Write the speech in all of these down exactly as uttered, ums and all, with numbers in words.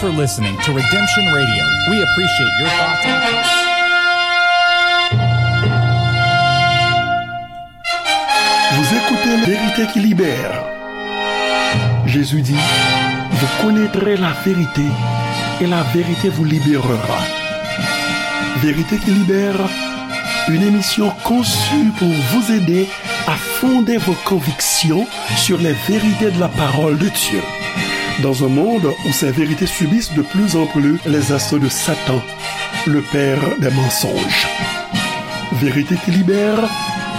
for listening to Redemption Radio. We appreciate your thoughts and comments. Vous écoutez Vérité qui libère. Jésus dit, vous connaîtrez la vérité et la vérité vous libérera. Vérité qui libère, une émission conçue pour vous aider à fonder vos convictions sur les vérités de la parole de Dieu. Dans un monde où ces vérités subissent de plus en plus les assauts de Satan, le père des mensonges. Vérité qui libère,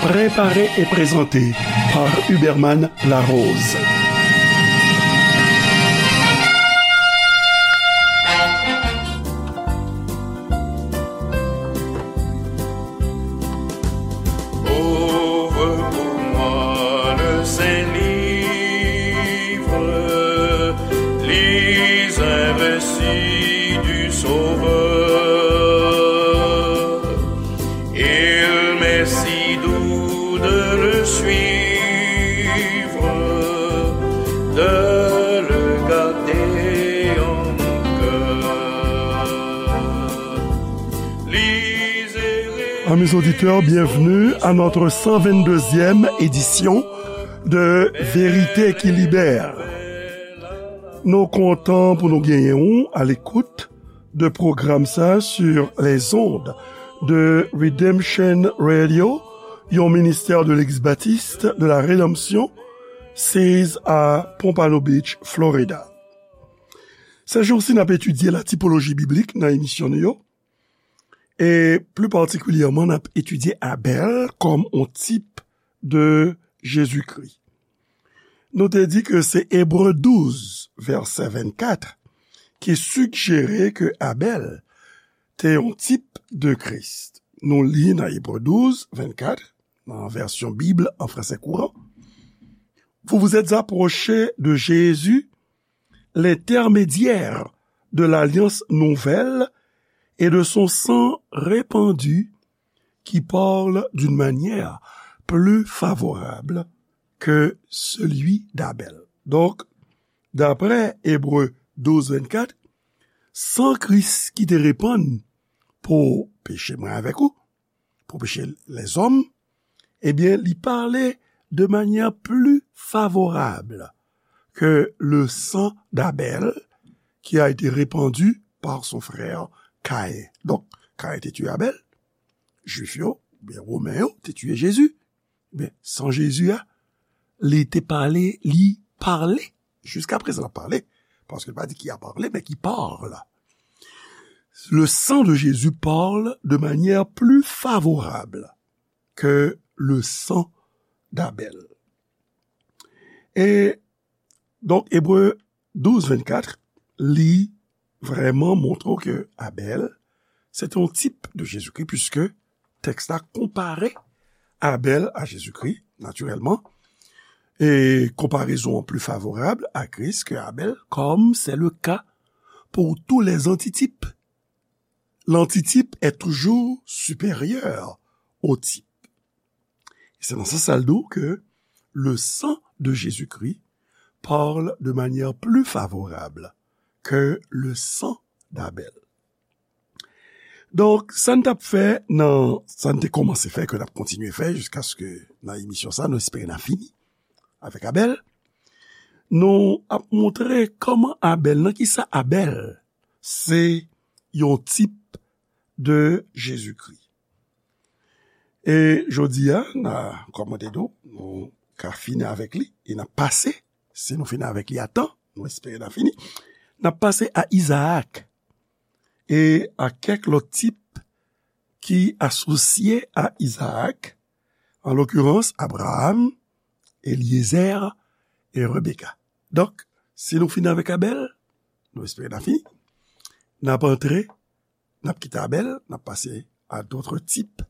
préparée et présentée par Huberman Larose. Ouvre pour moi le Saint-Livre, lis un récit du Sauveur. Il m'est si doux de le suivre, de le garder en mon cœur. Amis auditeurs, bienvenue à notre cent vingt-deuxième édition de Vérité qui libère. Nou kontan pou nou genyen ou à l'écoute de pwogram sa sur les ondes de Redemption Radio, yon ministè de Legliz Batis de la Redanmsyon, seize à Pompano Beach, Florida. Sèjousi n ap etidye la tipoloji biblik nan emisyon nou yo, e pli patikilyèman n ap etidye Abèl kòm yon tip de Jezikri. Nou te di ke se Ebre douz, vèsè vennkat, ki sigjere ke Abèl te yon tip de Kris. Nou li nan Ebre douz, vennkat, nan vèsyon Bib an fransè kouran, vous vous êtes approchés de Jésus, l'intermédiaire de l'alliance nouvelle et de son sang répandu qui parle d'une manière plus favorable que celui d'Abel. Donk, daprè Ebre douz vennkat, san Kris ki te repann pou peche mwen avèk ou, pou peche lèzòm, ebyen, li pale de manyè pli favorab ke le sang d'Abel qui a été répandu par son frère Caïn. Donk, Caïn te tiye Abèl, Jwif yo, oubyen Women yo, te tiye Jezi. Men, san Jezi a, li te pale, li pale. Jiskaprezan, l ap pale. Paske l pa di qui a parlé, men qui parle. Le sang de Jésus parle de manière plus favorable que le sang d'Abel. E donk, Ebre douz vennkat, li vrèman montre w ke Abèl, se te yon tip de Jezikri, puiske tèks la konpare Abèl a Jezikri, natirèlman, e konparezon an pli favorab a Kris ke Abèl, comme c'est le cas pour tous les antitypes. L'antitype est toujours supérieur au type. E se nan sans sa l di w ke le sang de Jésus-Christ parle de manière plus favorable que le sang d'Abel. Donk, sa n t ap fè nan, sa n te kòmanse fè, ke n ap kontinye fè jiskaske nan emisyon sa, nou espere n a fini avèk Abèl. Nou ap montre kòman Abèl, nan kisa Abèl se yon tip de Jezikri. E jodi a, n a, kòm mwen te di w, nou ka fini avèk li, e n ap pase, si nou fini avèk li a tan, nou espere n a fini, n ap pase a Izaak, e a kèk lòt tip ki asosye a Izaak, an lokirans, Abraram, Elyezè e Rebeka. Donk, si nou fini avèk Abèl, nou espere n a fini, n ap antre, n ap kite Abèl, n ap pase a d'autres types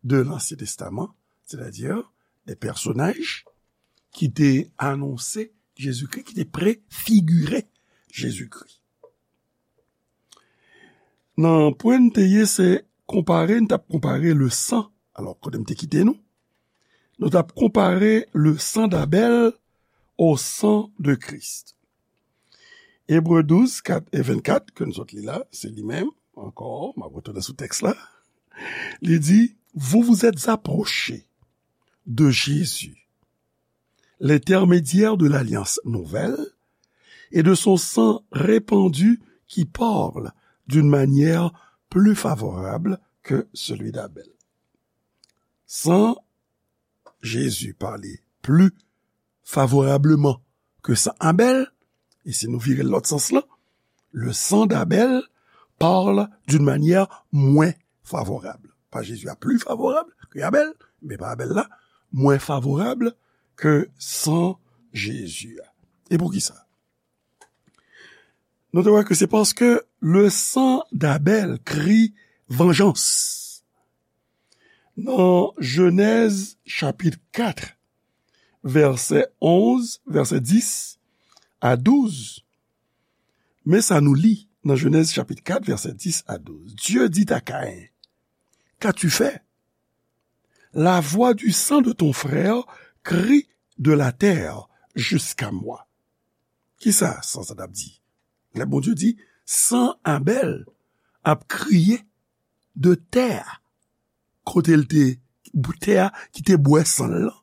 de l'Ancien Testament, c'est-à-dire des personnages ki te anonse Jezikri, ki te prefigire Jezikri. Nan pwen n te ye, se konpare, n t ap konpare le sang. Alò, kote m te kite nou? Nou t ap konpare le sang d'Abel au sang de Christ. Ebre douz, kat e vennkat, ke nou sot li la, se li menm, ankò, m ap retounen sou tèks la. Li di, vous vous êtes approchés de Jésus, l'intermédiaire de l'alliance nouvelle, et de son sang répandu qui parle d'une manière plus favorable que celui d'Abel. San Jezi pale pli favorableman ke san Abèl, e si nou vire l lòt sans lan, le sang d'Abel parle d'une manière moins favorable. Pa Jezi a pli favorab ke Abèl, men pa Abèl la, mwen favorab ke san Jezi a. E poukisa? Nou te wè ke se paske le sang d'Abel crie vengeance. Nan Jenèz chapit kat, vèsè onz, vèsè dis a douz, men sa nou li nan Jenèz chapit kat, vèsè dis a douz. Dieu dit à Caïn, qu'as-tu fait? La voix du sang de ton frère crie de la terre jusqu'à moi. Kisa san sa t ap di? Lè Bondye di, san Abèl ap kriye de tè a, kote l te, tè a ki te bwè san l lan.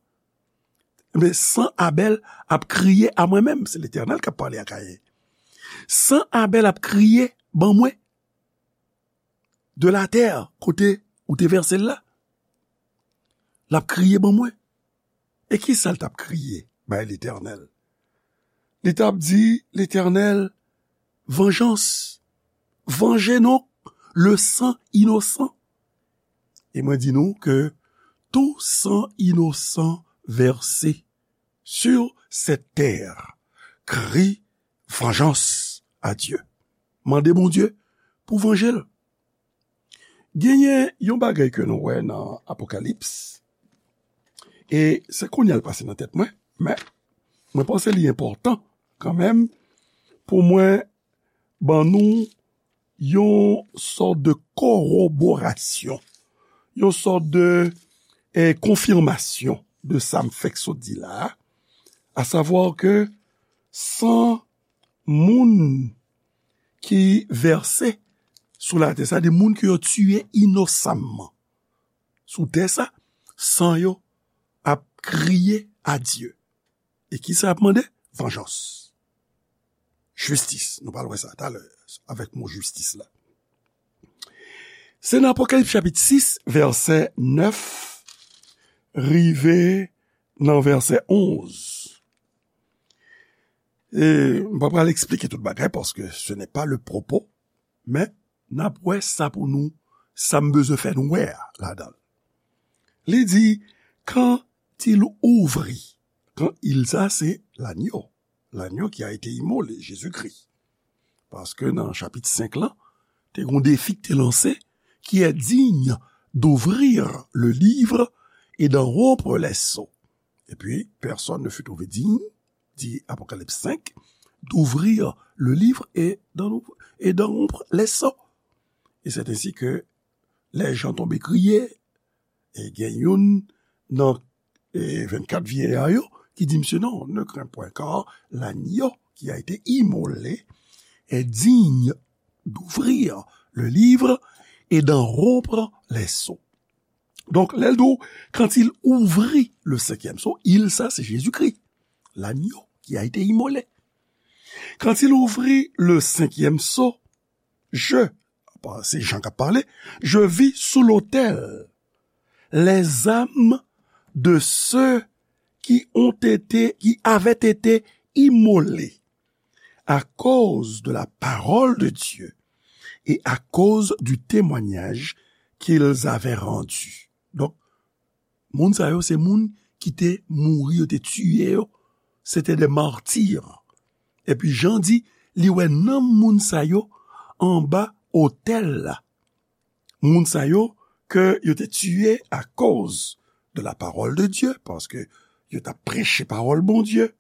Men san Abèl ap kriye a mwen menm, se Letènèl k ap pale a Kayen. San Abèl ap kriye ban mwen de la tè, kote ou te vèse l la. L ap kriye ban mwen. E kisa l t ap kriye bay Letènèl? Li t ap di, Letènèl, vengeance, vanje nou, le sang innocent. E mwen di nou ke tout sang innocent versé sur cette terre crie vengeance à Dieu. Mande Bondye pou vanje l. Genyen yon bagay ke nou wè nan Apokalips, e se kounye a l pase nan tèt mwen, men mwen panse li enpòtan kanmenm pou mwen ban nou yon sòt de koroborasyon, yon sòt de, eh, konfimasyon de sa m fèk sot di la a, asavwa ke san moun ki vèse sou latè, sa de moun ke yo tiye inosamman sou tè sa, san yo ap kriye a Dye. E kisa y ap mande? Vanjans. Jistis. Nou pral wè sa talè avèk mo jistis la. Se nan Apokalips chapit sis, vèsè nèf, rive nan vèsè onz. E m pa pral eksplike tout bagay, paske ce n'est pas le propos, men n ap wè sa pou nou, sa m bezwen fè nou wè a ladan l. Li di, quand il ouvrit, quand il sa, se lanyo, lanyo ki a ete imole, Jezikri. Paske nan chapit senk lan, te gon defi ki te lanse, qui est digne d'ouvrir le livre et d'en rompre les sceaux. Et puis, personne ne fut trouvé digne, dit Apocalypse cinq, d'ouvrir le livre et d'en, et d'en rompre les sceaux. Et c'est ainsi que les gens tombent crier, e gen youn nan, e, vennkat vyeya yo ki di misye, non, ne crains point, car l'agneau qui a été immolé est digne d'ouvrir le livre et d'en rompre les sceaux. Donk, lè l di w, quand il ouvrit le cinquième sceau, il sa, se Jezikri, l'agneau qui a été immolé. Quand il ouvrit le cinquième sceau, je, se Jan k ap pale, je vis sous l'autel les âmes de ceux qui ont été, qui avaient été immolés à cause de la parole de Dieu et à cause du témoignage qu'ils avaient rendu. Donk, moun sa yo se moun ki te mouri, yo te tiye yo, se te de martir. Epi Jan di, li wè nanm moun sa yo anba otèl la. Moun sa yo ke yo te tiye akoz de la parole de Dieu, paske yo t ap preche pawòl Bondye,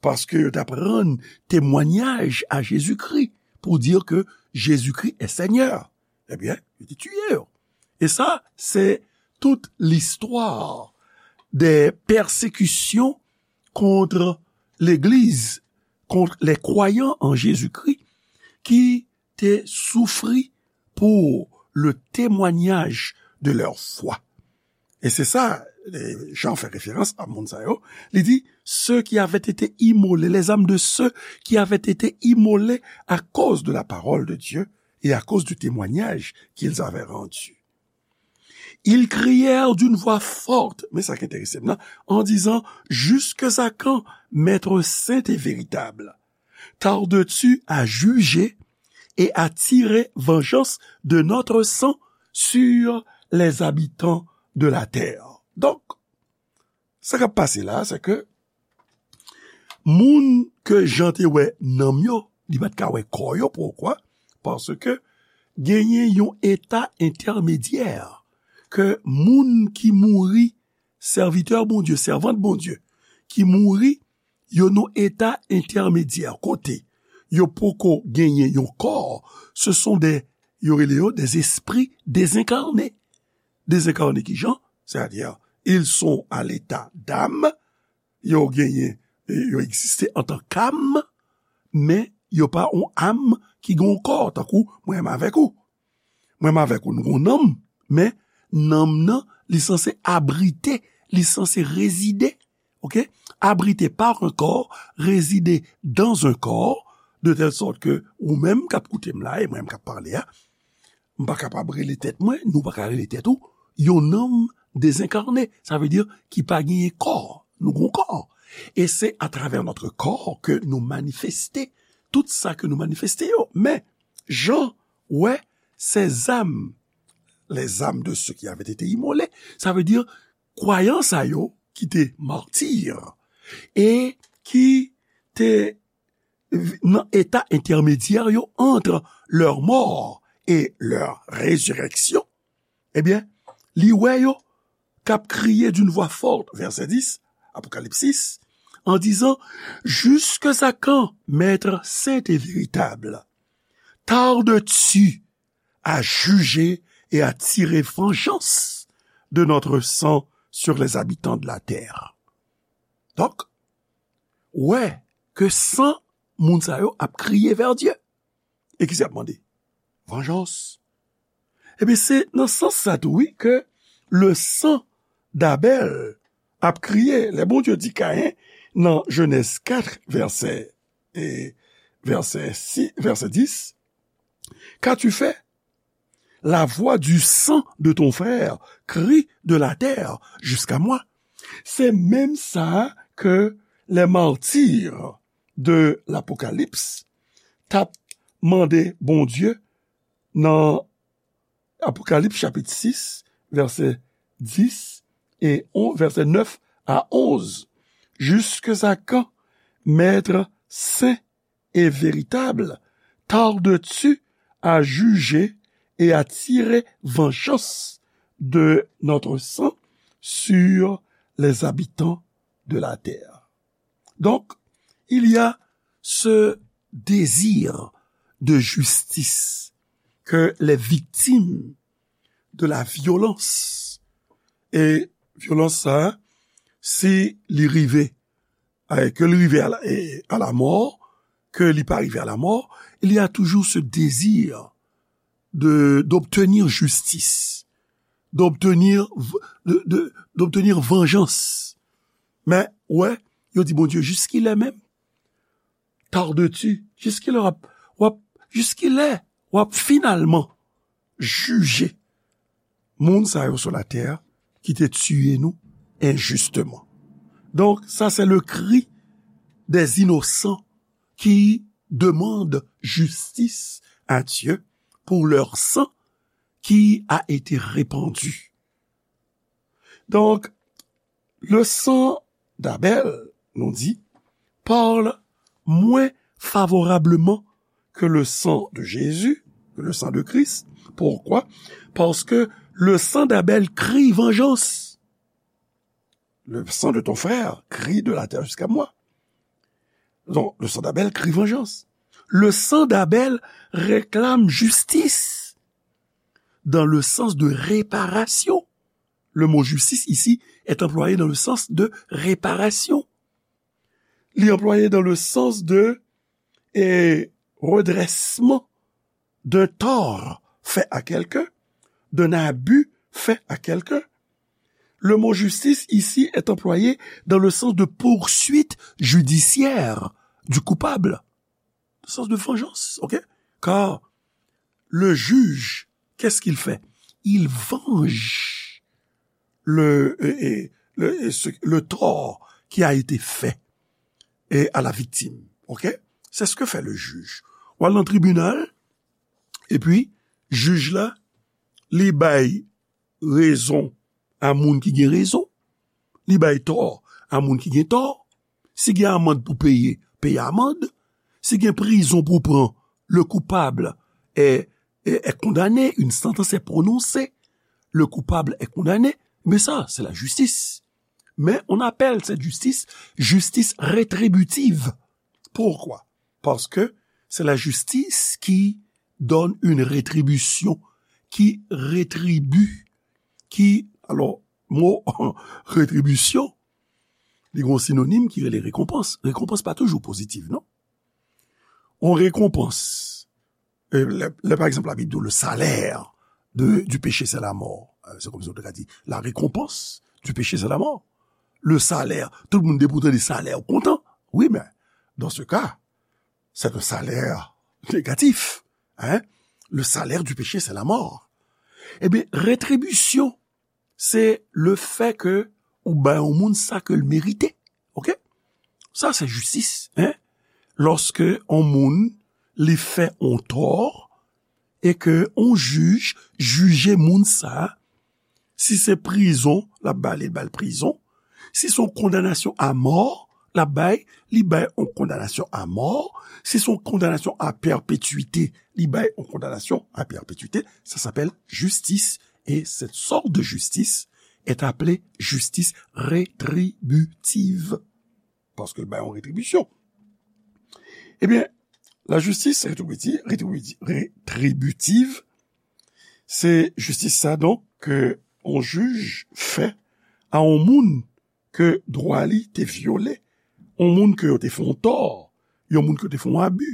paske yo t ap rann temwanyaj a Jezikri pou di ke Jezikri est Seigneur. Ebyen, yo te tiye yo. E sa, se tout listwa de pèsekisyon kont legliz, contre les croyants en Jésus-Christ qui te souffrit pour le témoignage de leur foi. E se sa, eh, Jan fè referans a moun sa yo. Li di, ceux qui avaient été immolés, les âmes de ceux qui avaient été immolés à cause de la parole de Dieu et à cause du témoignage qu'ils avaient rendu. Ils crièrent d'une voix forte, men sa ki enterese m nan, en disant, jusque à quand, Maître saint et véritable, tardes-tu à juger et à tirer vengeance de notre sang sur les habitants de la terre? Donk, sa k ap pase la, se ke moun ke Jan te wè nanm yo, li pa t ka wè kò yo. Poukwa? Paske genyen yon eta entèmedyè ke moun ki mouri, sèvitè Bondye, sèvant Bondye, ki mouri, yo nan eta entèmedyè kote yo poko genyen yon kò. Ce sont des, yo rele yo des esprits désincarnés. Désincarnés ki jan? C'est-à-dire, ils sont à l'état d'âme, yo genyen, yo egziste antan k'am, men yo pa yon am ki gen yon kò, tankou mwen menm avèk ou. Mwen menm avèk ou, nou gen yon nanm, men nanm nan, li sanse abrite, li sanse rezide, ok? Abrité par un corps, résider dans un corps, de telle sorte que ou menm k ap koute m la, e mwen menm k ap pale a, m pa kapab rele tèt mwen, nou pa ka rele tèt ou, yon nanm dezenkane. Sa vle di ki pa genyen kò. Nou gen yon kò. E se atravè notre corps ke nou manifeste tout sa ke nou manifeste yo. Men, Jan wè ces âmes, les âmes de ceux qui avaient été immolés, sa vle di kwayan sa yo ki te mati e ki te nan eta entèmedyè yo entre leur mort et leur résurrection, ebyen, li wè yo k ap kriye d'une voix forte, vèsè dis, Apokalips sis, en disant, jusque à quand, Maître saint et véritable, tardes-tu à juger et à tirer vengeance de notre sang sur les habitants de la terre? Donk, wè ke san moun sa yo ap kriye vè Dye. E ki sa y ap mande? Vanjans. Ebyen, se nan sans sa tou, wi, ke le sang d'Abel ap kriye. Lè Bondye di Kayen nan Jenèz kat, vèsè, e, vèsè sis, vèsè dis, qu'as-tu fait? La voix du sang de ton frère crie de la terre jusqu'à moi. Se menm sa ke les martyrs de l'Apocalypse t ap mande Bondye nan Apokalips chapit sis, vèsè dis e on, vèsè nèf a onz. Jusque à quand, Maître saint et véritable, tardes-tu à juger et à tirer vengeance de notre sang sur les habitants de la terre? Donc, il y a ce désir de justice que les victimes de la violence, e vyolans sa, si li rive, eh, ke li rive à la, eh, à la mort, ke li pa rive à la mort, il y a toujours ce désir de, d'obtenir justice, d'obtenir v-, de, de, d'obtenir vengeance. Men, wè, yo di Bondye, jiskilè menm? Tardes-tu? Jiskilè w ap, w ap, jiskilè w ap finalman jije moun sa yo sou latè ki te tiye nou enjisteman? Donc, ça, c'est le cri des innocents qui demandent justice à Dieu pour leur sang qui a été répandu. Donc, le sang d'Abel, nou di, parle moins favorablement que le sang de Jésus, que le sang de Christ. Pourquoi? Parce que le sang d'Abel crie vengeance. Le sang de ton frère crie de la terre jusqu'à moi. Donc, le sang d'Abel crie vengeance. Le sang d'Abel réclame justice dans le sens de réparation. Le mot justice ici est employé dans le sens de réparation. li anplwaye dans le sens de, eh, redressement d'un tort fait à quelqu'un, d'un abus fait à quelqu'un. Le mot justice ici est employé dans le sens de poursuite judiciaire du coupable, le sens de vengeance, ok? Car le juge, qu'est-ce qu'il fait? Il venge le, euh, euh, le, euh, ce- le tort qui a été fait, euh, à la victime. Ok? C'est ce que fait le juge. Ou al nan tribinal, epi jij la, li bay rezon a moun ki gen rezon, li bay tò a moun ki gen tò. Si gen amand pou peye, peye amand. Si gen prizon pou pran, le coupable est, est, est condamné, une sentence est prononcée, le coupable est condamné. Mais ça, c'est la justice. Mais on appelle cette justice justice rétributive. Pourquoi? Parce que c'est la justice qui donne une rétribution, qui rétribue, qui, alors, mo retribisyon, li gen yon sinonim ki rele rekonpans. Rekonpans pa toujou pozitiv, non? On rekonpans. E lè, lè, pa egzanp, Labib di w, le salaire de, du péché, c'est la mort. Euh, c'est comme si on te dit, la récompense du péché, c'est la mort. Le salaire, tout moun depi w tande salè, ou kontan. Oui, mais dans ce cas, c'est un salaire négatif. Hein? Le salaire du péché, c'est la mort. Ebyen, retribisyon, se le fè ke ou bay yon moun sa ke l merite. Ok? Sa se jistis, hein? Lòske yon moun li fè yon tò e ke yon jij jije moun sa, si se prizon, l ap ba li, l ba l prizon. Si se yon kondanasyon a mò, l ap bay, li bay yon kondanasyon a mò. Si se yon kondanasyon a pèpetwite, li bay yon kondanasyon a pèpetwite. Ça s'appelle justice. Et cette sorte de justice est appelée justice rétributive. Paske l bay yon retribisyon. Ebyen, la justice rétributive, rétributive, rétributive, se jistis sa, donk, ke yon jij fè a yon moun ke dwa li te vyole, yon moun ke yo te fè yon tò, yon moun ke yo te fè yon abi.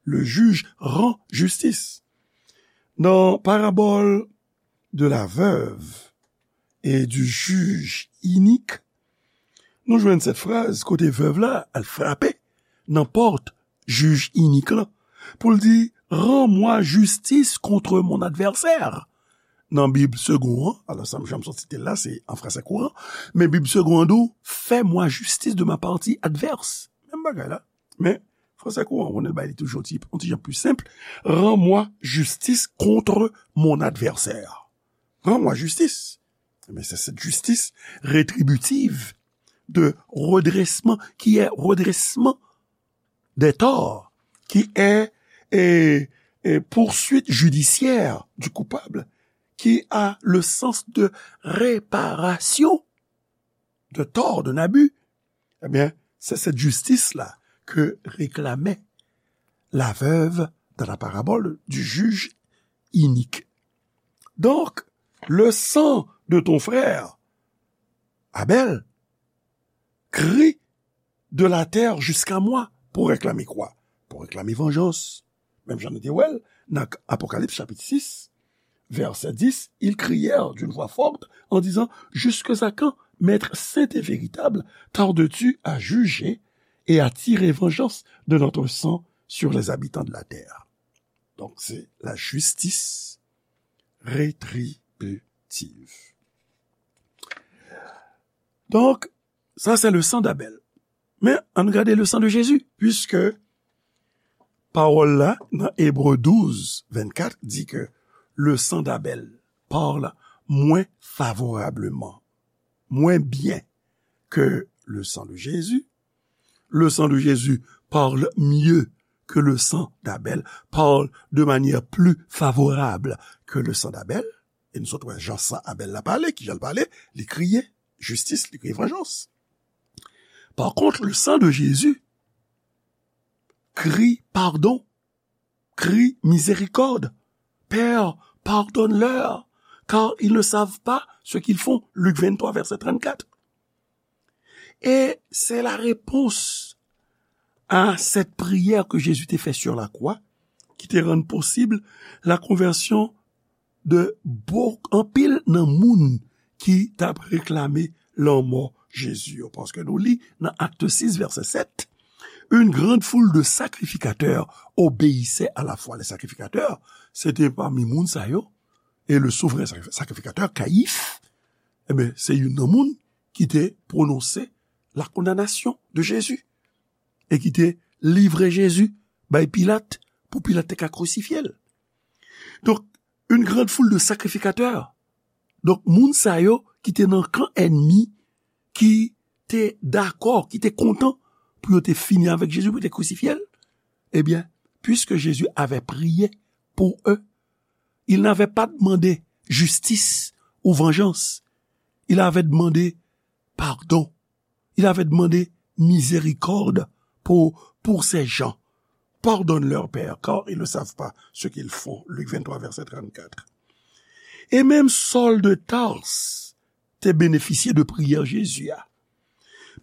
Le juge rend justice. Nan parabòl de la veuve et du juge inique, nou jwenn sèt fraz kote vèv la al frape nan pòt jij inik lan pou l di, rends-moi justice contre mon adversaire. Nan Bib Segond an, alò sa m janm sot site l la, se an fransè kouran, men Bib Segond an di w, fais-moi justice de ma partie adverse. Menm bagay la. Men, fransè kouran, ou konnen l bay li toujou yon ti, yon ti jan pli senp. Rends-moi justice contre mon adversaire. Rends-moi justice. Mais c'est cette justice rétributive de redressement qui est redressement des torts, qui est, est, est poursuite judiciaire du coupable, qui a le sens de réparation de tort, d'un abus. Eh bien, c'est cette justice-là que réclamait la veuve dans la parabole du juge inique. Donc, le sang de ton frère, Abel, crie de la terre jusqu'à moi pou reklame kwa? Pou reklame vanjans. Menm jan nou te wè l nan Apokalips chapit sis, vèsè dis, ils crièrent d'une voix forte en disant, jusqu'à quand, Maître saint et véritable, tardes-tu à juger et à tirer vengeance de notre sang sur les habitants de la terre? Donc, c'est la justice rétributive. Donc, ça, c'est le sang d'Abel. Men, ann gade le sang de Jésus, puisque pawòl la, nan Ebre douz, vennkat, di ke le sang d'Abel parle moins favorablement, moins bien que le sang de Jésus. Le sang de Jésus parle mieux que le sang d'Abel, parle de manière plus favorable que le sang d'Abel. E nou sot wè jan san Abèl la pale, kijan l pale, li kriye jistis, li kriye vanjans. Par contre, le sang de Jésus crie pardon, crie miséricorde. Père, pardonne-leur, car ils ne savent pas ce qu'ils font. Luc vingt-trois, verset trente-quatre. Et c'est la réponse à cette prière que Jésus te fè sur la croix, ki te rann posib la konvèsyon de bon, anpil nan moun ki t ap reklame lanmò Jezi yo. Paske nou li nan Acte six, verset sept, une grande foule de sacrificateurs obéissait à la foi. Les sacrificateurs, se te pami moun sa yo, e le souvren sakrifikatè, Kayif, ebyen, se youn nan moun ki te pwononse la kondanasyon de Jezi e ki te livre Jezi bay Pilat pou Pilat te ka krisifye l. Donk, une grande foule de sacrificateurs. Donk, moun sa yo ki te nan kan ènmi, ki te dakò, ki te kontan pou yo te fini avèk Jezi, pou yo te krisifye l, ebyen, puisque Jésus avait prié pour eux, il n'avait pas demandé justice ou vengeance. Il avait demandé pardon. Il avait demandé miséricorde pour, pour ces gens. Pardonne-leur, Père, car ils ne savent pas ce qu'ils font. Luc vingt-trois, verset trente-quatre. E menm Saul de Tarse te benefisye de priyè Jezi a.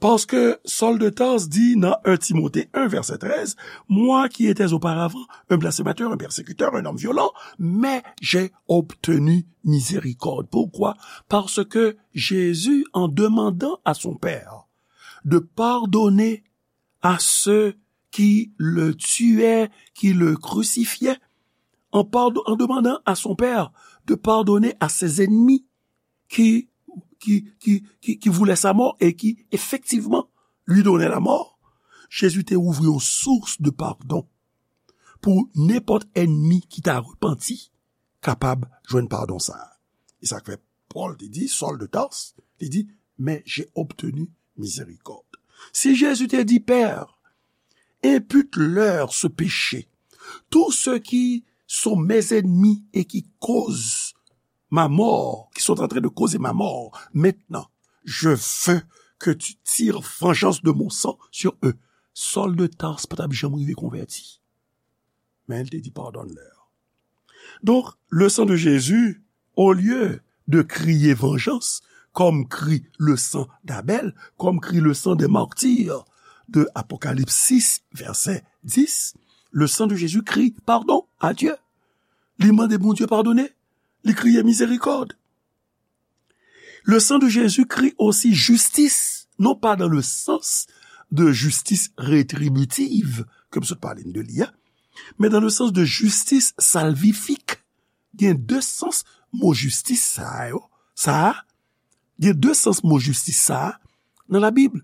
Paske Saul de Tarse di nan un Timothée un, verset treize, moi qui étais auparavant un blasphémateur, un persécuteur, un homme violent, mais j'ai obtenu miséricorde. Pourquoi? Parce que Jésus, en demandant à son Père de pardonner à ceux qui le tuaient, qui le crucifiaient, en, pardon, en demandant à son Père de pardonner à ses ennemis qui, qui, qui, qui, qui voulaient sa mort et qui, effectivement, lui donnaient la mort, Jésus te ouvri yon sous de pardon pou nenpòt ènmi ki ta repanti kapab jwenn padon sa a. E sa k fè Pòl te di, Saul de Tarse, li di, mais j'ai obtenu miséricorde. Si Jezi te di, Père, impute-leur ce péché, tous ceux qui sont mes ennemis et qui causent ma mort, qui sont en train de causer ma mort, maintenant, je veux que tu tires vengeance de mon sang sur eux. Saul de Tarse pa t ap janm rive konvèti. Men li te di, pardonne-leur. Donc, le sang de Jésus, au lieu de crier vengeance, comme crie le sang d'Abel, comme crie le sang des martyrs de Apocalypse six, verset dix, le sang de Jésus crie pardon à Dieu. Li mande Bondye padone, li kriye mizerikòd. Le sang de Jésus crie aussi justice, non pas dans le sens de justice rétributive, ke m sot pale n de li a, men dans le sens de justice salvifique. Gen de sans mo jistis sa a yo, sa a, gen de sans mo jistis sa a nan Labib.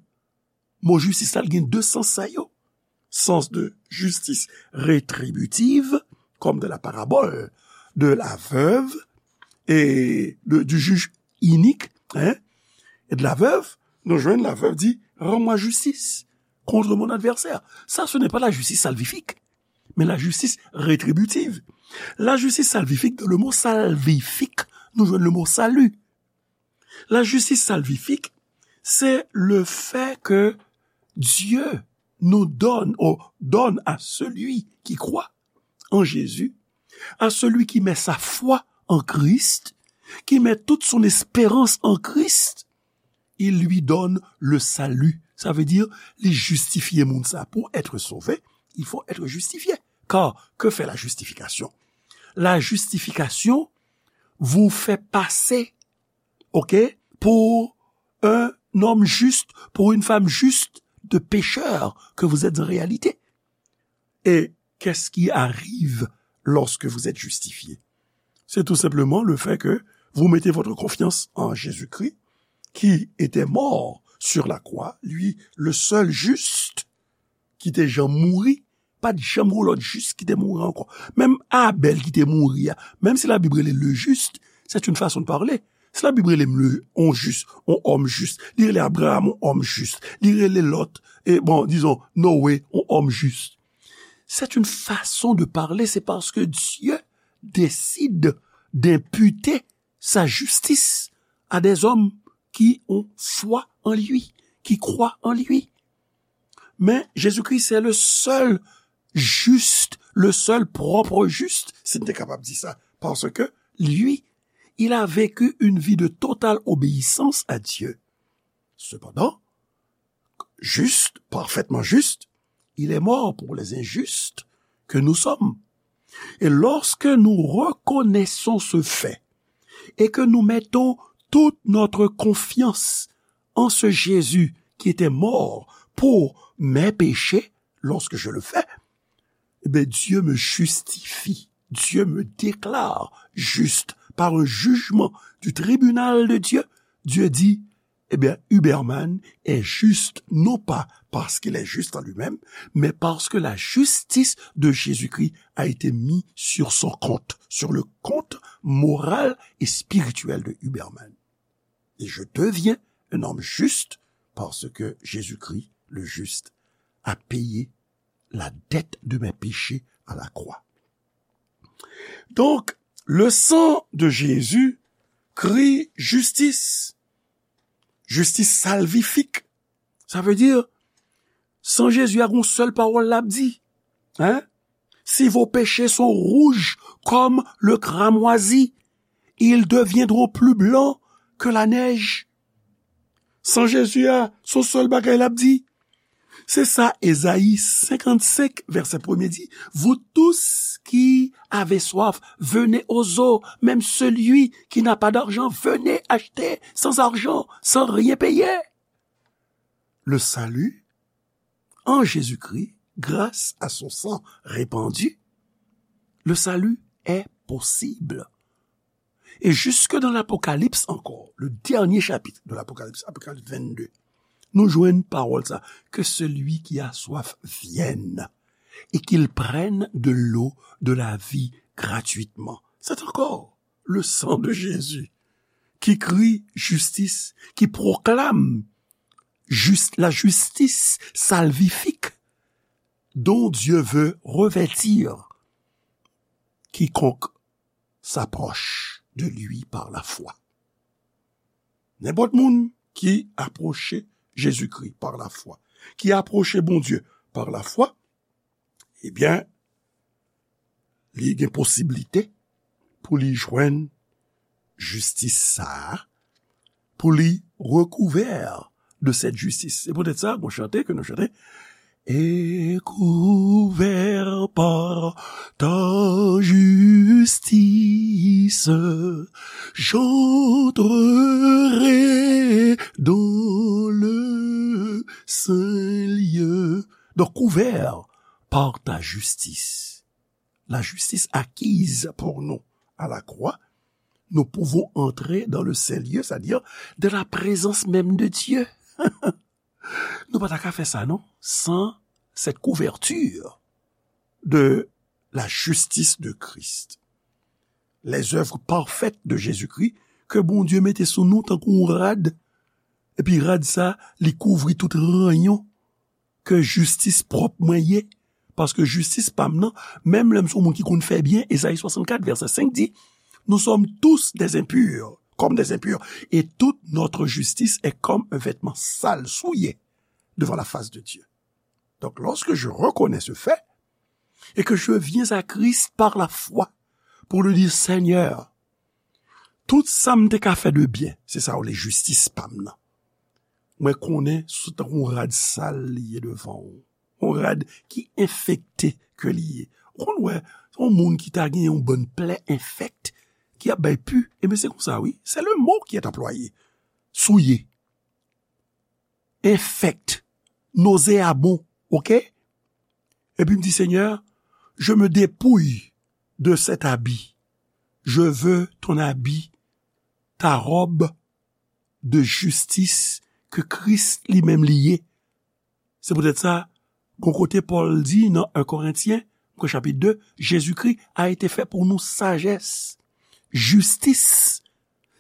Mo jistis la, l gen de sans sa yo. Sens de justice rétributive, comme de la parabole de la veuve et de, du juge inique, hein, et de la veuve, nou jwenn la veuve di, rends-moi justice contre mon adversaire. Ça, ce n'est pas la justice salvifique, mais la justice rétributive. La justice salvifique, dans le mot salvifique, nou jwenn le mot salut. La justice salvifique, c'est le fait que Dieu nous donne, ou donne à celui qui croit en Jésus, à celui qui met sa foi en Christ, qui met toute son espérance en Christ, il lui donne le salut. Ça veut dire, li jistifye moun sa. Pour être sauvé, il faut être justifié. Car que fait la justification? La justification vous fait passer, ok, pour un homme juste, pour une femme juste, de pécheur que vous êtes en réalité. Et qu'est-ce qui arrive lorsque vous êtes justifié? C'est tout simplement le fait que vous mettez votre confiance en Jésus-Christ, qui était mort sur la croix, lui, le seul juste, ki te janm mouri, pa t janm gen lòt jis ki te mouri ankò. Menm Abèl ki te mouri a, menm si Labib rele le juste, c'est une façon de parler. Si Labib rele m le, on jis, on òm jis, li rele Abraham on òm jis, li rele Lòt, e bon, dizon, Noé, on òm jis. C'est une façon de parler, c'est parce que Dieu décide d'imputer sa justice à des hommes qui ont foi en lui, qui croient en lui. Men Jezikri, c'est le seul juste, le seul propre juste, si n te kapab di sa, parce que lui, il a vécu une vie de totale obéissance à Dieu. Cependant, juste, parfaitement juste, il est mort pour les injustes que nous sommes. Et lorsque nous reconnaissons ce fait et que nous mettons toute notre confiance en ce Jésus qui était mort pour mes péchés, lorsque je le fais, eh bien, Dieu me justifie, Dieu me déclare juste par un jugement du tribunal de Dieu. Dieu dit, eh bien, Huberman est juste, non pas parce qu'il est juste en lui-même, mais parce que la justice de Jésus-Christ a été mise sur son compte, sur le compte moral et spirituel de Huberman. Et je deviens un homme juste parce que Jésus-Christ, le juste, a payé la dette de mes péchés à la croix. Donc, le sang de Jésus crie justice. Justice salvifique. Sa vle di, san Jezi a gon sèl pawòl l ap di. Hein? Si vos péchés sont rouges comme le cramoisi, ils deviendront plus blancs que la neige. San Jezi a, se yon sèl bagay l ap di. Se sa Ezayi senkannsenk, vèsè premye di, vous tous qui avez soif, venez aux eaux. Même celui qui n'a pas d'argent, venez acheter sans argent, sans rien payer. Le salut en Jésus-Christ, grâce à son sang répandu, le salut est possible. Et jusque dans l'Apocalypse encore, le dernier chapitre de l'Apocalypse, Apocalypse vingt-deux, nou jwenn pawòl sa, que celui qui a soif vienne et qu'il prenne de l'eau de la vie gratuitement. C'est encore le sang de Jésus qui crie justice, qui proclame juste la justice salvifique dont Dieu veut revêtir quiconque s'approche de lui par la foi. Nenpòt moun ki apwoche Jezikri pa lafwa, ki apwoche Bondye pa lafwa, ebyen, li gen posiblite pou li jwenn jistis sa a, pou li rekouvè de cette justice. Se poutèt sa, gon chante ke nou chante, et couvert par ta justice, j'entrerai dans le saint lieu. Donc, couvert par ta justice, la justice acquise pour nous à la croix, nous pouvons entrer dans le saint lieu, c'est-à-dire de la présence même de Dieu. Nou pa ta ka fè sa, non, sans cette couverture de la justice de Christ. Les œuvres parfaites de Jésus-Christ, ke Bondye mete sou nou tankou yon rad, epi rad sa, li kouvri tout ranyon ke jistis pwòp mwen ye, paske jistis pa m nan, menm lè m se yon moun ki konn fè byen, Ezayi swasannkat, vèsè senk di, nous sommes tous des impurs, comme des impurs, et toute notre justice est comme un vêtement sale, souillé, devant la face de Dieu. Donc, lorsque je reconnais ce fait, et que je viens à Christ par la foi, pour lui dire, Seigneur, tout sa m te ka fè de byen, se sa w le jistis pa m nan. Mwen konnen se tankou yon rad sal li ye devan w. Yon rad ki enfekte ke li ye. Ou konn wè, yon moun ki ta gen yon bann plè enfèkt, ki ap bay pu, ebyen se konsa wi. C'est le mot qui est employé. Souillé. Infect, nauséabond, ok? Epi m di, Seigneur, je me dépouille de cet habit. Je veux ton habit, ta robe de justice ke Kris li menm li ye. Se poutèt sa, gon kote Pòl di nan un Korentyen, chapit de, Jezikri a été fait pour nous sagesse, justice,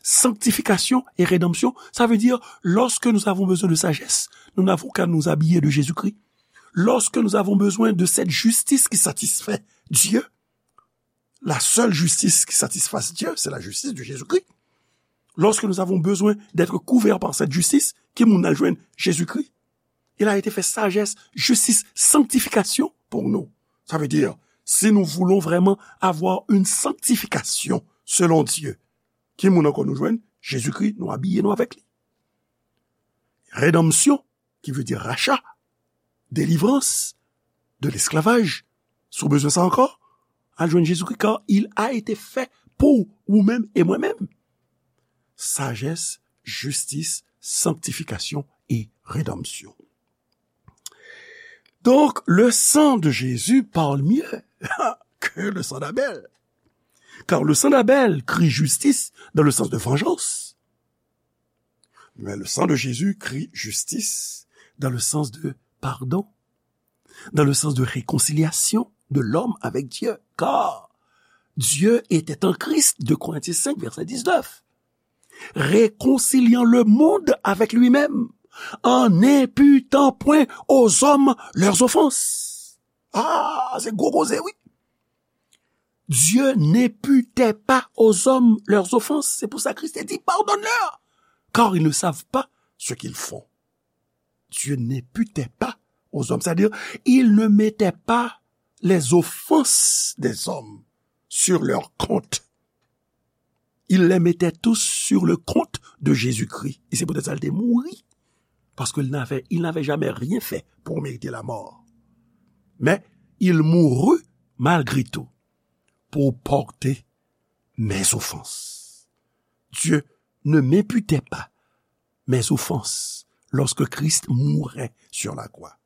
sanctification et rédemption. Ça veut dire, lorsque nous avons besoin de sagesse, nous n'avons qu'à nous habiller de Jésus-Christ. Lorsque nous avons besoin de cette justice qui satisfait Dieu, la seule justice qui satisfasse Dieu, c'est la justice de Jésus-Christ. Lorsque nous avons besoin d'être couverts par cette justice, ki moun al jwenn? Jezikri. Il a été fait sagesse, justice, sanctification pour nous. Ça veut dire, si nous voulons vraiment avoir une sanctification selon Dieu, ki moun ankò nou jwenn? Jezikri, nou abiye nou avèk li. Redanmsyon, ki vle di racha, delivrans, de l'esclavage. Si w bezwen sa ankò, al jwenn Jezikri, car il a été fait pour ou menm e mwen menm. Sagesse, justice, sanctification et rédemption. Donc, le sang de Jésus parle mieux que le sang d'Abel. Car le sang d'Abel crie justice dans le sens de vengeance. Mais le sang de Jésus crie justice dans le sens de pardon, dans le sens de réconciliation de l'homme avec Dieu. Car Dieu était en Christ, deux Corinthiens cinq, verset dix-neuf, réconciliant le monde avec lui-même, en n'imputant point aux hommes leurs offenses. Ah, se gwo koze, wi. Dieu n'imputait pas aux hommes leurs offenses. C'est pour ça Christ dit, pardonne-leur, car ils ne savent pas ce qu'ils font. Dieu n'imputait pas aux hommes. C'est-à-dire, il ne mettait pas les offenses des hommes sur leur compte. Il les mettait tous sur le compte de Jésus-Christ. E se poutèt sa l te mouri. Parce qu'il n'avait, il n'avait jamais rien fait pour mériter la mort. Mais il mourut malgré tout pour porter mes offenses. Dieu ne m'imputait pas mes offenses lorsque Christ mourait sur la croix.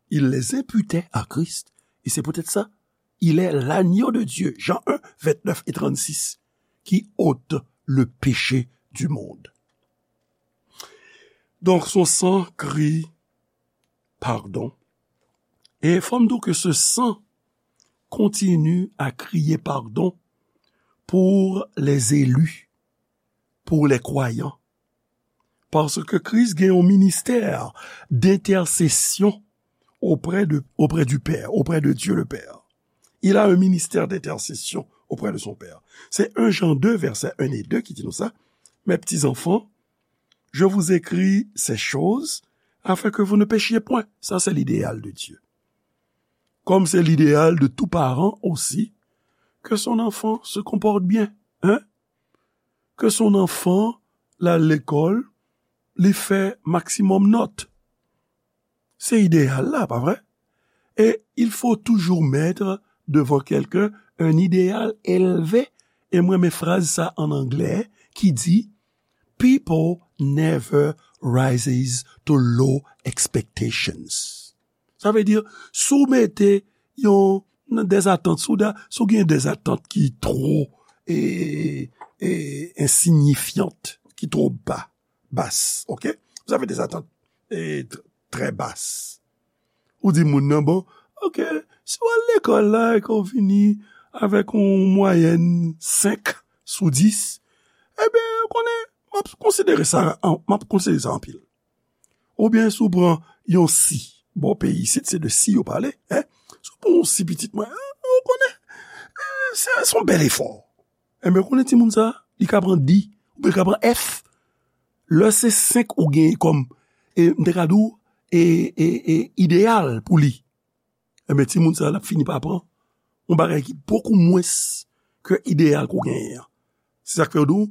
Il les imputait à Christ. Et c'est peut-être ça. Il est l'agneau de Dieu, Jean un, vingt-neuf et trente-six, qui ôte le péché du monde. Donc, son sang crie pardon. Et fò m di w ke ce sang continue à crier pardon pour les élus, pour les croyants. Parce que Christ gen yon ministère d'intercession auprès de, auprès du Père, auprès de Dieu le Père. Il a un ministère d'intercession auprès de son Père. C'est un Jean deux, verset un et deux qui dit nous ça. Mes petits enfants, je vous écris ces choses afin que vous ne péchiez point. Ça, c'est l'idéal de Dieu. Comme c'est l'idéal de tout parent aussi, que son enfant se comporte bien, hein? Que son enfant, l al lekòl, li fè maksimòm nòt. Se idéal la, pa vre? Et il faut toujours mettre devant quelqu'un un idéal élevé. E mwen renmen fraz sa an anglè ki di, people never rises to low expectations. Sa vle di, si w mete yon, des attentes, si w da, si w gen des attentes ki twò, e, e, insignifiant, ki twò ba, bas, ok? Vous avez des attentes, e, tr-, très basses. Ou di moun nan, bon, ok, si w al lekòl la e ke w vini avèk yon mwayèn senk sou dis, ebyen, ou konnen, m ap konsidere sa, an, m ap konsidere sa anpil. Oubyen si w pran yon si, bò peyi isit, se de si yo pale, en. Si w pran yon si pitit mwen, en, ou konnen, e, se, se yon bèl efò. Enben, ou konnen timoun sa, li ka pran di, oubyen li ka pran F. Lè se senk ou genyen kòm, e, m te ka di w, e, e, e, ideyal pou li. Enben, timoun sa, l ap fini pa pran yon bagay ki bokou mwens ke ideyal ke w genyen an. Se sa k fè yo di w,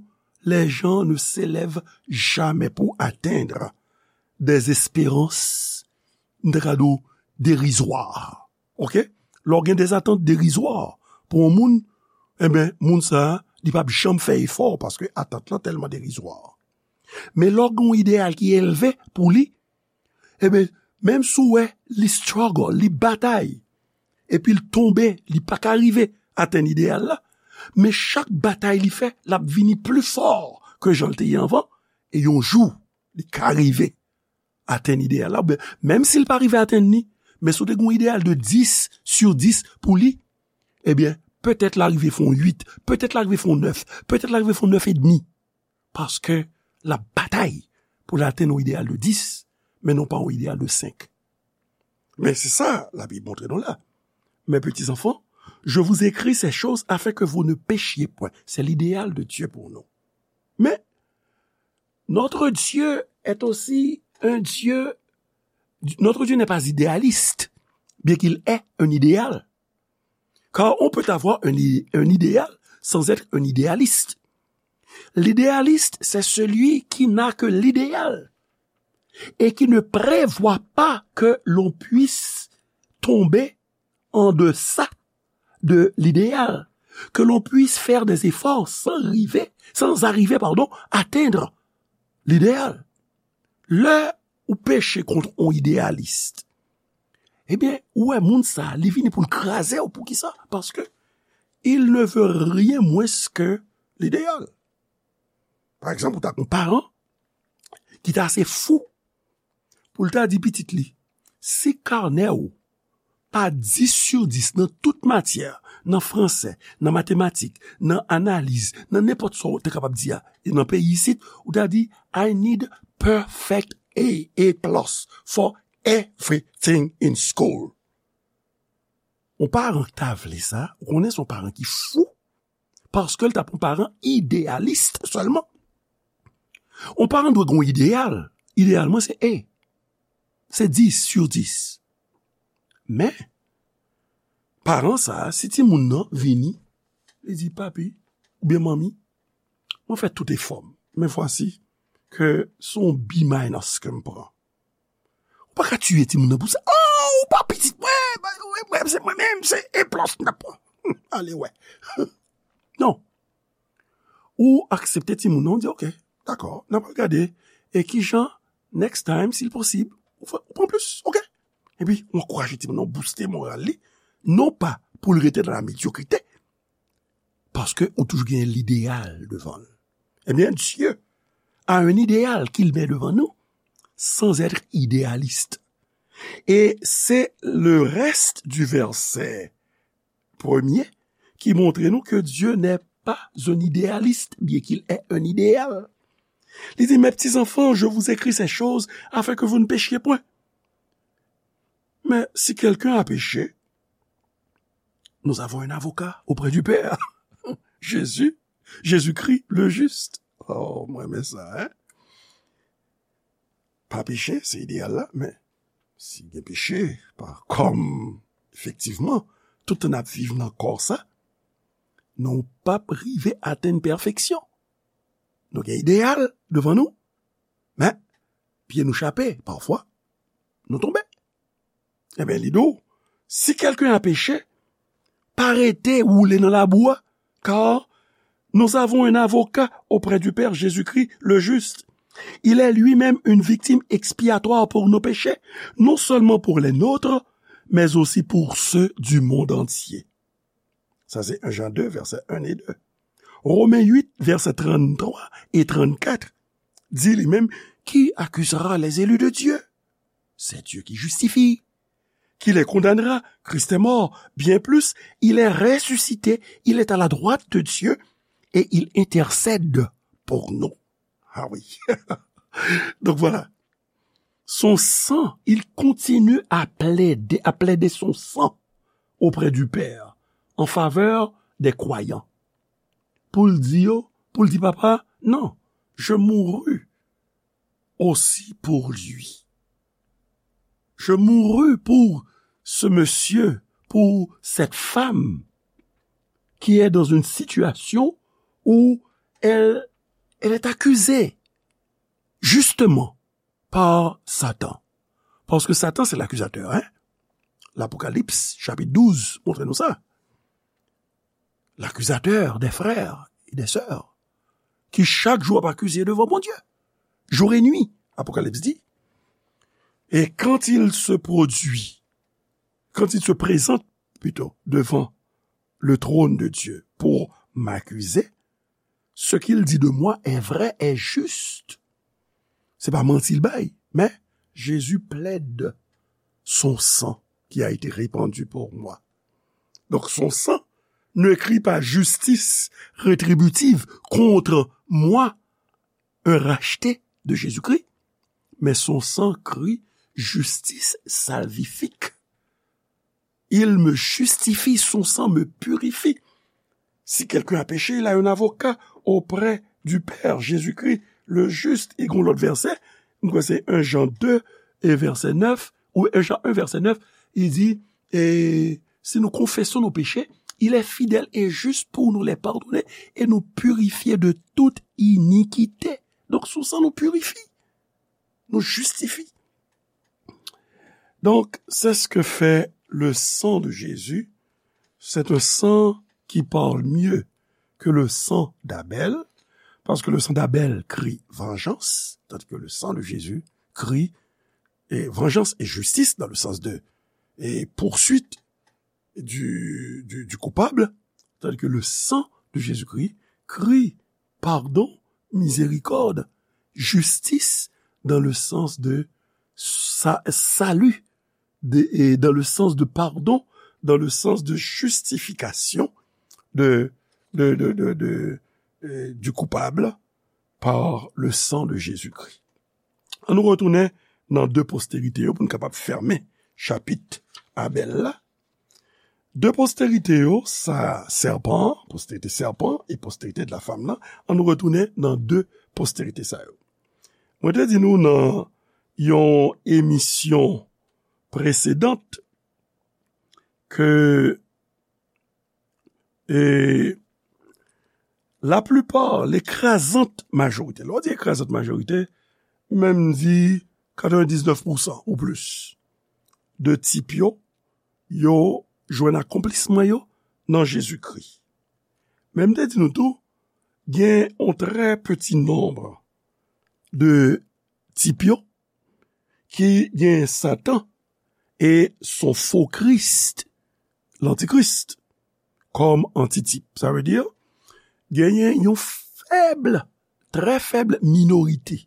les gens ne s'élèvent jamais pour atteindre des espérances, m te ka di w, dérisoires. Ok? Lè w gen des attentes dérisoires pou yon moun, enben, moun sa a, li p ap janm fè efò paske atant lan tèlman derizwa. Men lè w gen yon ideyal ki elve pou li, enben, menm si w wè li struggle, li batay, epi l tonbe, li pa ka rive atenn ideyal la, men chak batay li fè, l ap vini pli fò ke jan l te ye anvan, e yon jou, li ka rive atenn ideyal la, oubyen menm si l pa rive atenn li, men si w te gen yon ideyal de dis sur dis pou li, ebyen, petèt l a rive fè yon uit, petèt l a rive fè yon nèf, petèt l a rive fè yon nèf edmi. Paske l ap batay pou l atenn yon ideyal de dis, men non pa yon ideyal de senk. Men se sa Labib montre nou la. Mes petits enfants, je vous écris ces choses afin que vous ne péchiez point. C'est l'idéal de Dieu pour nous. Mais notre Dieu est aussi un Dieu, notre Dieu n'est pas idéaliste, bien qu'il ait un idéal. Car on peut avoir un, i- un idéal sans être un idéaliste. L'idéaliste, c'est celui qui n'a que l'idéal et qui ne prévoit pas que l'on puisse tomber en deçà de l'idéal, que l'on puisse faire des efforts sans arriver, sans arriver, pardon, atteindre l'idéal. Lè ou peche kont yon idéaliste, ebyen, ou wè moun sa, li vini pou l kraze w. Poukisa? Paske il ne veut rien moins que l'idéal. Pa egzanp, ou ta gen yon paran ki ta ase fou pou l ta di pitit li, si kanè w pa dis sou dis nan tout matyè, nan franse, nan matematik, nan analiz, nan nenpòt sa w te kapab di a, e nan peyi isit, ou ta di, I need perfect A, A plus for everything in school. Yon paran ki ta vle sa, ou konnen se yon paran ki fou, paske l t ap yon paran ideyalis sèlman. Yon paran dwe gen yon ideyal. Ideyal mwen se A. Se dis sou dis. Men, paran sa a, si timoun nan vini, li di, papi oubyen manmi, mwen fè tout efò m, men vwasi ke se yon B minus ke m pran. Ou pa ka tiye timoun nan pou sa. Oh, ou pa pitit mwen, mwen, mwen, se mwen menm, se A plus m t ap pran. Ale wè. Non. Ou aksepte timoun nan, ou di, ok, dakò, n ap gade, e kijan, next time, si l posib, ou fè, ou pran plis, ok? Epi, ou ankouraje timoun nan, ou booste moral li, non pa pou l rete nan la medyokrite, paske ou toujou gen lideyal devan l. Ebyen, Dieu a un idéal qu'il met devant nous sans être idéaliste. Et c'est le reste du verset premier qui montre nous que Dieu n'est pas un idéaliste, bien qu'il ait un idéal. Li di, mes petits enfants, je vous écris ces choses afin que vous ne péchiez point. Mais si quelqu'un a péché, nous avons un avocat auprès du Père. Jésus, Jésus-Christ, le juste. Oh, mwen renmen sa, hein? Pa peche, se ideyal la, men si gen peche, pa kòm, efektivman, tout tan n ap viv nan kò sa, nou p ap rive atenn pèfeksyon. Nou gen ideyal devan nou, men pye nou chape, pafwa, nou tonbe. Ebyen, li di w, si quelqu'un a péché, pa rete woule nan labou a, car nous avons un avocat auprès du Père, Jésus-Christ, le juste. Il est lui-même une victime expiatoire pour nos péchés, non seulement pour les nôtres, mais aussi pour ceux du monde entier. Sa se un Jean deux, vèsè un e de. Romen uit, vèsè tranntwa e trannkat, di li menm, qui accusera les élus de Dieu? C'est Dieu qui justifie. Qui les condamnera? Christ est mort. Bien plus, il est ressuscité, il est à la droite de Dieu et il intercède pour nous. Ah oui. Donc voilà. Son sang, il continue à plaider, à plaider son sang auprès du Père en faveur des croyants. Pou l di yo, pou l di papa, non, je mourus aussi pour lui. Je mourus pour ce monsieur, pour cette femme qui est dans une situation où elle, elle est accusée justement par Satan. Paske Satan se lakizatè, hein? L'Apocalypse, chapitre douze, montre nou sa. L'accusateur des frères et des sœurs, qui chaque jour ap akize devan Bondye, jour et nuit, Apocalypse dit. Et quand il se produit, quand il se présente, plutôt, devant le trône de Dieu pour m'accuser, ce qu'il dit de moi est vrai, est juste. Se pa manti l bay, men Jésus plaide son sang qui a été répandu pour moi. Donc son sang ne crie pas justice rétributive contre moi, un racheté de Jésus-Christ, mais son sang crie justice salvifique. Il me justifie, son sang me purifie. Si quelqu'un a péché, il a un avocat auprès du Père, Jésus-Christ, le juste. E gon lòt vèsè, m kwè se un Jean deux e vèsè nèf, ou un Jean un vèsè nèf, li di, e si nou konfesyon nou peche, il est fidèle et juste pour nous les pardonner et nous purifier de toute iniquité. Donk, sou san nou pirifi, nou jistifi. Donc, c'est ce que fait le sang de Jésus, c'est un sang qui parle mieux que le sang d'Abel, parce que le sang d'Abel crie vengeance, tandis que le sang de Jésus crie et vengeance et justice dans le sens de et poursuite du, du, du coupable, tandis que le sang de Jésus-Christ crie pardon, miséricorde, justice dans le sens de sa- salut, de- et dans le sens de pardon, dans le sens de justification de, de, de, de, de, euh, du coupable par le sang de Jésus-Christ. Ann nou retounen nan de posterite yo pou n kapab fèmen chapit Abèl la. De posterite yo, sa sèpan, posterite sèpan e posterite de la femme la, ann nou retounen nan de posterite sa yo. Mwen te di nou nan yon emisyon presedant ke e laplipa, lekrazant majorite, lè w di ekrazant majorite, menm di katrevendisnèf pousan ou plis de tip yo, yo jwenn akonplisman yo nan Jezikri. Men m te di nou tou, gen yon trè piti nonb de tip yo ki gen Satan e son fo Kris, lantikris, kòm antitip. Sa vle di, genyen yon fèb, trè fèb minorite,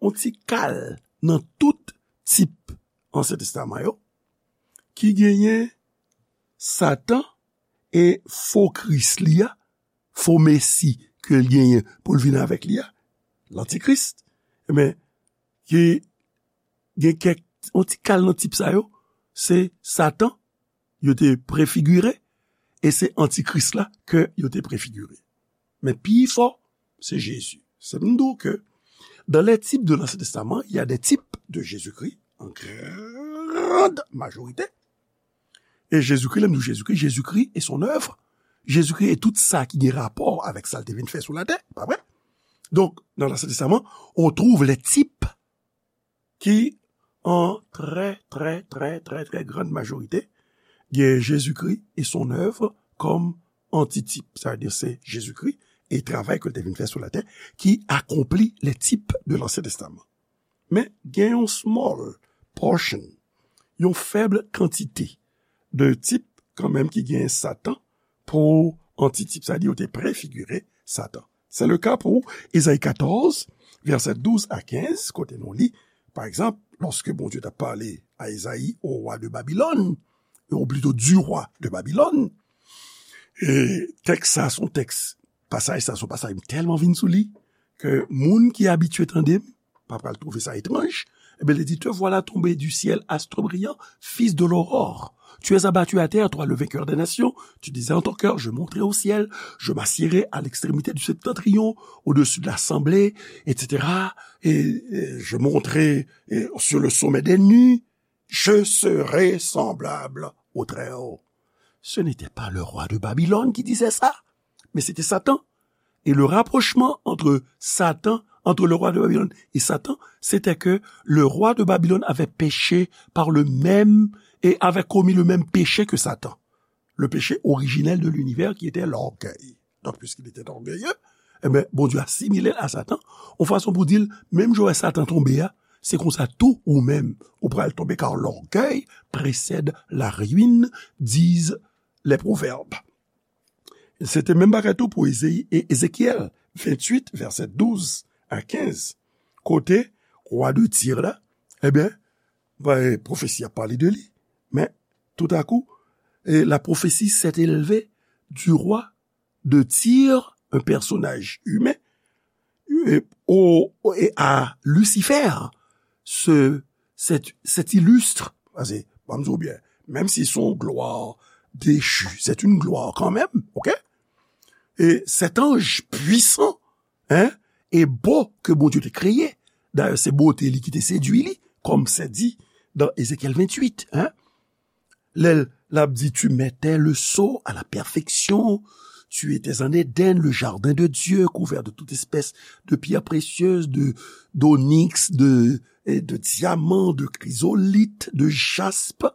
yon ti kal nan tout tip Ansyen Testaman yo, ki genyen Satan e fo Kris li a, fo Mesi ke l genyen pou l vin avèk li a, lantikris, men, ki gen kèk, yon ti kal nan tip sa yo, se Satan, yo te prefigire, e se antikris la ke yo te prefigire. Men pi fò, se Jezi. Se m di w ke dans les types de l'Ancien Testament, il y a des types de Jésus-Christ, en grande majorité. E Jezikri, lè m di w Jezikri, Jezikri e son œuvre, Jezikri e tout sa ki gen rapò avèk sa l te vin fè sou latè, pa vre? Donk, dans l'Ancien Testament, on trouve les types ki, an trè, trè, trè, trè, trè grande majorité, gen Jezikri e son œuvre kòm antitip. Sa vle di se Jezikri e travay ke l te vin fè sou latè ki akonpli les types de l'Ancien Testament. Men gen yon small portion, yon fèb kantite de tip kanmenm ki gen Satan pou antitip. Sa vle di yo te prefigire Satan. Se le ka pou Ezayi katòz, vèsè douz a kenz, kote nou li, pa egzanp, lòske Bondye t ap pale a Ezayi, au roi de Babylone, ou plito du roi de Babylone, e tèks sa se yon tèks, pasaj sa se yon pasaj m tèlman vin sou li, ke moun ki abitye tande m, pa pral twouve sa etranj. Ebyen, li di, te voilà tombé du ciel, astre brillant, fils de l'aurore. Tu es abattu à terre, toi le vainqueur des nations. Tu disais en ton cœur, je monterai au ciel, je m'assiérai à l'extrémité du septentrion, au-dessus de l'assemblée, et cetera. Et, et je monterai et sur le sommet des nues, je serai semblable au Très-Haut. Ce n'était pas le roi de Babylone qui disait ça, mais c'était Satan. Et le rapprochement entre Satan, entre le roi de Babylone et Satan, c'était que le roi de Babylone avait péché par le même, et avait commis le même péché que Satan. Le péché originel de l'univers qui était l'orgueil. Donc, puisqu'il était orgueilleux, eh ben, Bondye asimile l a Satan, yon fason pou di l, menm jan w wè Satan tonbe a, se konsa tou ou menm, ou pral tonbe, car l'orgueil précède la ruine, disent les proverbes. Se te menm bagay tou pou Eze- E- Ezekyèl venntuit, vèsè douz a kenz, kote wa de Tir la, ebyen, ba, pwofesi a pale de li, men toutakou, e la prophétie s'est élevée du roi de Tyr, un personnage humain, e, au- et à Lucifer, ce, cet, cet illustre, paske, ban m di w byen, menm si se yon glwa dechi, c'est une gloire quand même, ok? E cet ange puissant, hein, et beau que Bondye te kreye, dayè se bote li ki te sedui li, comme c'est dit dans Ézéchiel vingt-huit, hein, lè l ap di, tu mettais le sceau à la perfection, tu étais en Éden, le jardin de Dieu, couvert de toute espèce de pierres précieuses, de, d'onyx, de, et de diamants, de chrysolithes, de jaspe.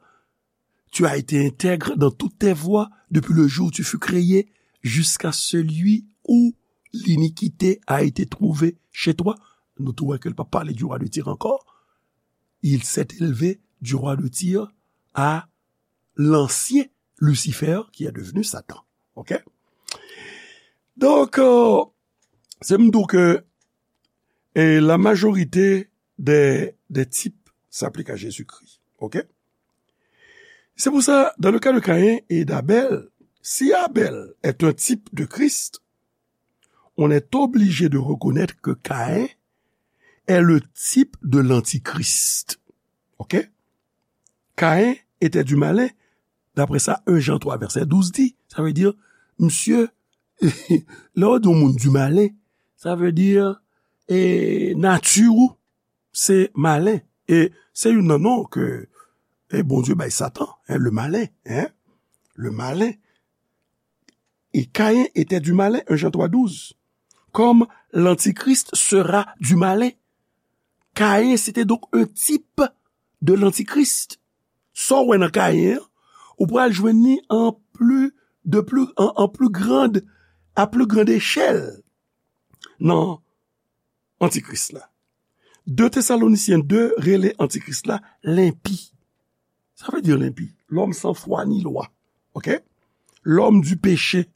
Tu as été intègre dans toutes tes voies depuis le jour où tu fus créé, jusqu'à celui où l'iniquité a été trouvée chez toi. Nou tou wè ke l pa pale du roi de Tyr ankò. Il s'est élevé du roi de Tyr à l'ancien Lucifer, qui est devenu Satan. OK? Donk, euh, se m di w ke, e, la majorite des, des types s'appliquent à Jésus-Christ. OK? C'est pour ça, dans le cas de Caïn et d'Abel, si Abel est un type de Christ, on est obligé de reconnaître que Caïn est le type de l'antichrist. OK? Caïn était du malin, d'après ça, un Jean trois verset douze dit. Ça veut dire, monsieur, lè w di yon moun du malin, sa vle di, e, nati w se malen. E se youn nan non ke, e, Bondye bay Satan, hein, le malin, hein, le malin. Et Caïn était du malin, un Jean trois douze. Comme l'antichrist sera du malin. Caïn, c'était donc un type de l'antichrist. Sa w wè nan Caïn an, ou pral jwenn li an pli, de pli, an, an pli grand, à plus grande échelle nan antikris la. De Tesalonisyen de rele antikris la lenpi. Sa vle di lenpi. L'homme sans foi ni loi. OK? L'homme du péché.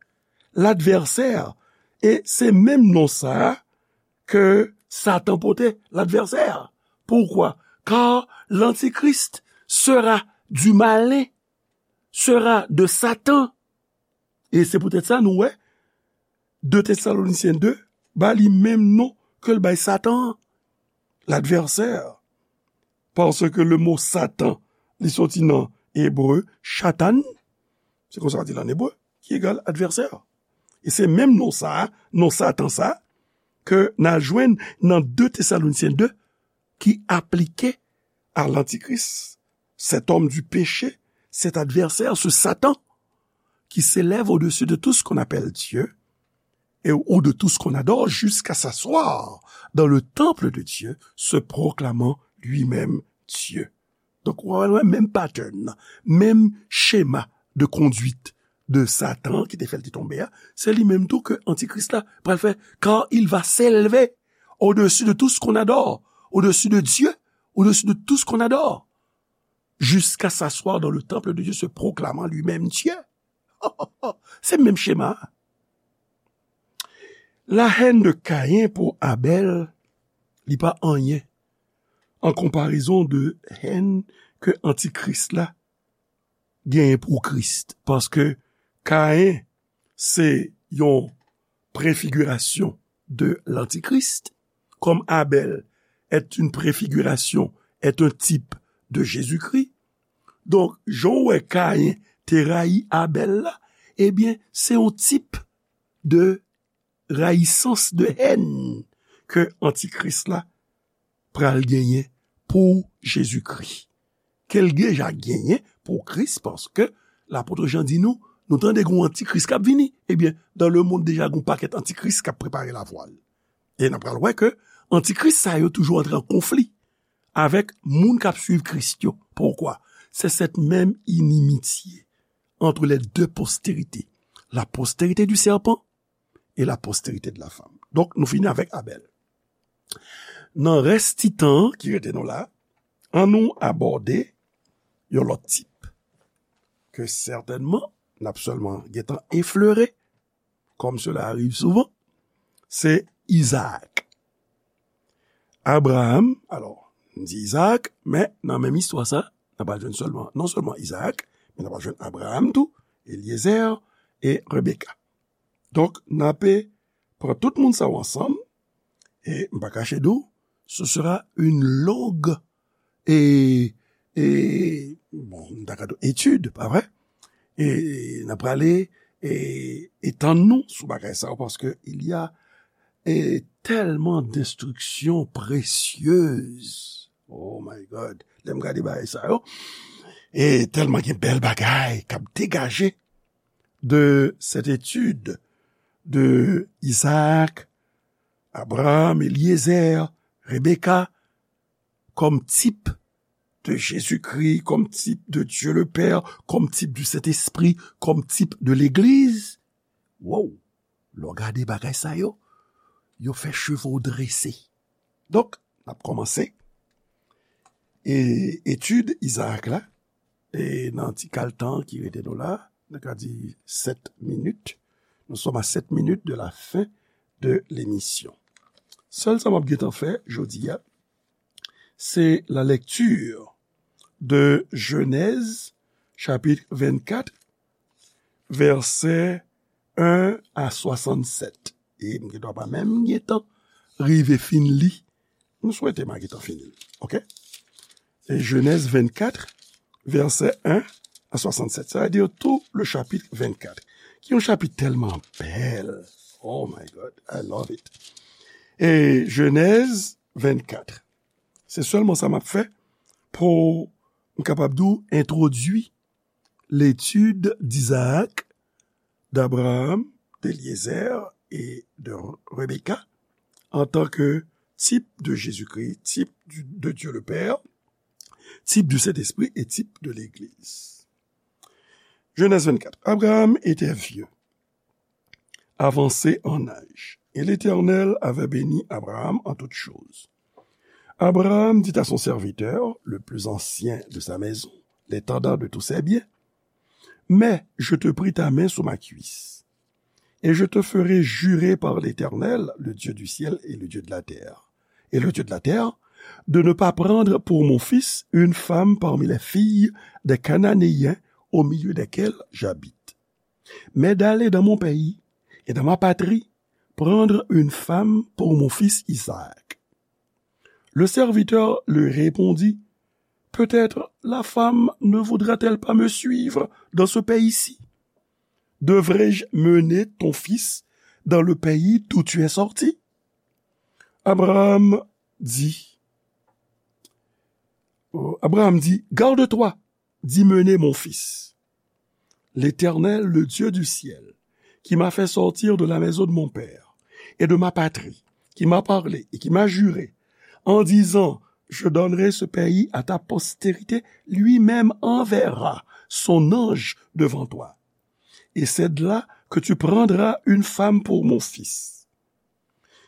L'adversaire. E se menm non sa a ke Satan pote, l'adversaire. Pourquoi? Car l'antichrist sera du malin, sera de Satan. E se poutèt sa nou wè de Tesalonisyen de ba li menm non ke l bay Satan an, l'adversaire. Paske le mo Satan, li soti nan ebre, Shatan, se konsa yo di l ann ebre, ki egal advèsè. E se menm non sa a, non Satan sa a, ke n a jwenn nan de Tesalonisyen de, ki aplike a lantikris, cet homme du péché, cet adversaire, ce Satan, qui s'élève au-dessus de tout ce qu'on appelle Dieu, et, ou de tout ce qu'on adore, jusqu'à s'asseoir dans le temple de Dieu, se proclamant lui-même Dieu. Donk, w wè menm pattern nan, menm chema de conduite de Satan ki te fè l te tonbe a, se li menm tou ke antikris la pral fè, car il va s'élever au-dessus de tout ce qu'on adore, au-dessus de Dieu, au-dessus de tout ce qu'on adore, jusqu'à s'asseoir dans le temple de Dieu, se proclamant lui-même Dieu. Se menm chema a. La haine de Caïn pour Abel, li pa anyen an konparezon de haine ke antikris la genyen pou Kris. Paske Caïn se yon préfiguration de l'antichrist, comme Abel est une préfiguration, est un type de Jésus-Christ. Donk, jan w wè Caïn te rayi Abel la, ebyen, se yon tip de rayisans, de haine ke antikris la pral genyen pou Jezikri. Ke l deja genyen pou Kris, paske lapot Jan di nou, nou tande gen yon antikris k ap vini. Ebyen, dans le monde deja gen yon pakèt antikris k ap prepare lavwa l. E n ap pral wè ke antikris sa yo toujou antre an konfli avèk moun k ap swiv Kris yo. Poukwa? C'est cette même inimitié entre les deux postérités, la postérité du serpent et la postérité de la femme. Donk, nou fini avèk Abèl. Nan rès ti tan ki rete nou la, ann nou abòde yon lòt tip ke sètènman n ap sèlman gentan eflere, comme cela arrive souvent, se Izaak. Abraram, alò, m di Izaak, men nan menm istwa sa, n ap al jwenn sèlman, non sèlman Izaak, men n ap al jwenn Abraram tou, Elyezer e Rebeka. Donk, n ape pran tout moun sa yo ansanm, e m pa kache di w, ce sera une longue e, e, bon, m ta ka di w etid, pa vre? E n ap prale e, etann nou sou bagay sa yo, paske il y a e, tèlman d'instructions précieuses. Oh my God. Lè m gade bagay sa yo, e tèlman gen bèl bagay k ap degaje de cette étude de Isaac, Abraham, Eliezer, Rebecca, comme type de Jésus-Christ, comme type de Dieu le Père, comme type du Saint-Esprit, comme type de l'Église. Wow! Lè w gade bagay sa yo, yo fè cheve w drese. Donk, n ap kòmanse e etid Izaak la, e nan ti kal tan ki rete nou la, nou ka di sèt minit. Nous sommes à sept minutes de la fin de l'émission. Sèl sa m ap gentan fè jodi a, c'est la lecture de Genèse chapitre vingt-quatre, verset un à soixante-sept. E m gendwa pa menm gentan rive fin li. M swete m a gentan fini li. Oke? E Genèse vingt-quatre, verset un à soixante-sept. Sa vle di tout le chapitre vingt-quatre. Ki yon chapit tèlman bèl. Oh my God, I love it. E Genèse vingt-quatre. Se sèlman sa m ap fè pou m kapab di w entwodui l'étude d'Isaac, d'Abraham, d'Éliézer et de Rebecca en tant que type de Jésus-Christ, type du- de Dieu le Père, type du Saint-Esprit et type de l'Église. Genèse vingt-quatre. Abraham était vieux, avancé en âge, et l'Éternel avait béni Abraham en toutes choses. Abraham dit à son serviteur, le plus ancien de sa maison, l'intendant de tous ses biens, mets, je te prie, ta main sous ma cuisse, et je te ferai jurer par l'Éternel, le Dieu du ciel et le Dieu de la terre, et le Dieu de la terre, de ne pas prendre pour mon fils une femme parmi les filles des Cananéens au milieu desquels j'habite, mais d'aller dans mon pays et dans ma patrie prendre une femme pour mon fils Isaac. Le serviteur lui répondit, peut-être la femme ne voudra-t-elle pas me suivre dans ce pays-ci? Devrais-je mener ton fils dans le pays d'où tu es sorti? Abraham dit, euh, Abraham dit, garde-toi d'y mener mon fils. L'Éternel, le Dieu du ciel, qui m'a fait sortir de la maison de mon père et de ma patrie, qui m'a parlé et qui m'a juré, en disant, je donnerai ce pays à ta postérité, lui-même enverra son ange devant toi. Et c'est de là que tu prendras une femme pour mon fils.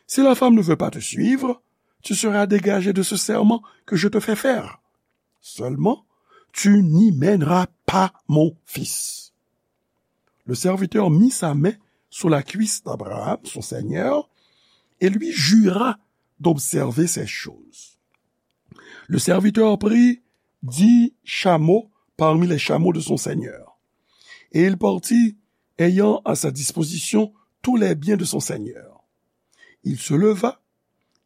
Si la femme ne veut pas te suivre, tu seras dégagé de ce serment que je te fais faire. Seulement, tu n'y mèneras pas mon fils. Le serviteur mit sa main sur la cuisse d'Abraham, son seigneur, et lui jura d'observer ces choses. Le serviteur prit dix chameaux parmi les chameaux de son seigneur, et il partit, ayant à sa disposition tous les biens de son seigneur. Il se leva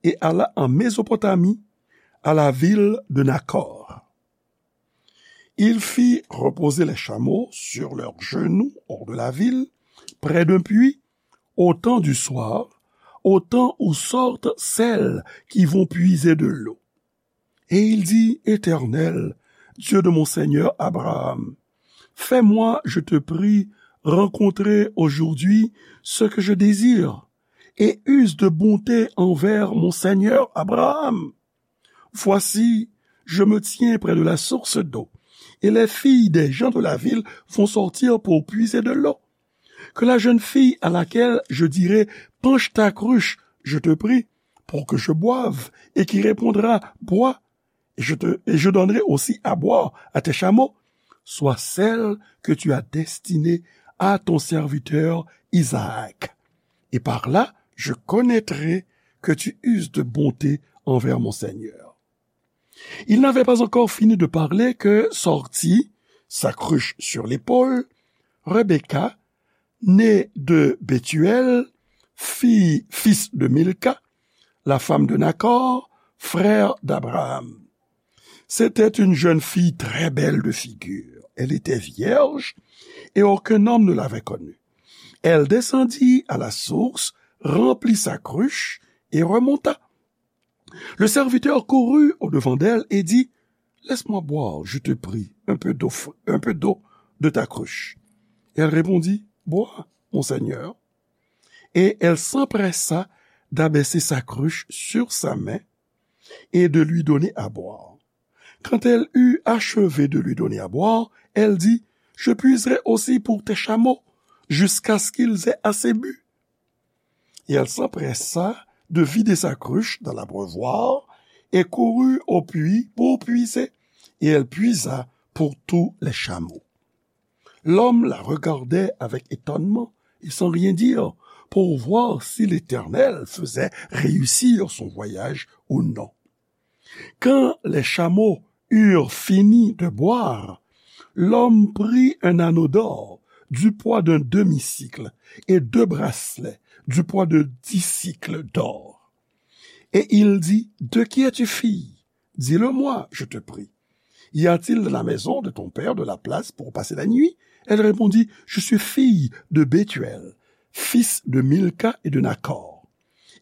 et alla en Mésopotamie, à la ville de Nakor. Il fit reposer les chameaux sur leurs genoux hors de la ville, près d'un puits, au temps du soir, au temps où sortent celles qui vont puiser de l'eau. Et il dit, Éternel, Dieu de mon seigneur Abraham, fais-moi, je te prie, rencontrer aujourd'hui ce que je désire, et use de bonté envers mon seigneur Abraham. Voici, je me tiens près de la source d'eau, et les filles des gens de la ville vont sortir pour puiser de l'eau. Que la jeune fille à laquelle je dirai, penche ta cruche, je te prie, pour que je boive, et qui répondra, bois, et je te, et je donnerai aussi à boire à tes chameaux, soit celle que tu as destinée à ton serviteur Isaac. Et par là, je connaîtrai que tu uses de bonté envers mon Seigneur. Il n'avait pas encore fini de parler que sortit, sa cruche sur l'épaule, Rebecca, née de Bethuel, fille, fils de Milca, la femme de Nakor, frère d'Abraham. C'était une jeune fille très belle de figure. Elle était vierge et aucun homme ne l'avait connue. Elle descendit à la source, remplit sa cruche et remonta. Le serviteur courut au-devant d'elle et dit, laisse-moi boire, je te prie, un peu d'eau, un peu d'eau de ta cruche. Et elle répondit, bois, mon Seigneur. Et elle s'empressa d'abaisser sa cruche sur sa main et de lui donner à boire. Quand elle eut achevé de lui donner à boire, elle dit, je puiserai aussi pour tes chameaux, jusqu'à ce qu'ils aient assez bu. Et elle s'empressa de vider sa cruche dans l'abreuvoir et courut au puits pour puiser. Et elle puisa pour tous les chameaux. L'homme la regardait avec étonnement et sans rien dire pour voir si l'Éternel faisait réussir son voyage ou non. Quand les chameaux eurent fini de boire, l'homme prit un anneau d'or du poids d'un demi-sicle et deux bracelets du poids de dix sicles d'or. Et il dit, de qui es-tu fille ? Dis-le-moi, je te prie. Y a-t-il dans la maison de ton père de la place pour passer la nuit ? Elle répondit, je suis fille de Bethuel, fils de Milca et de Nacor.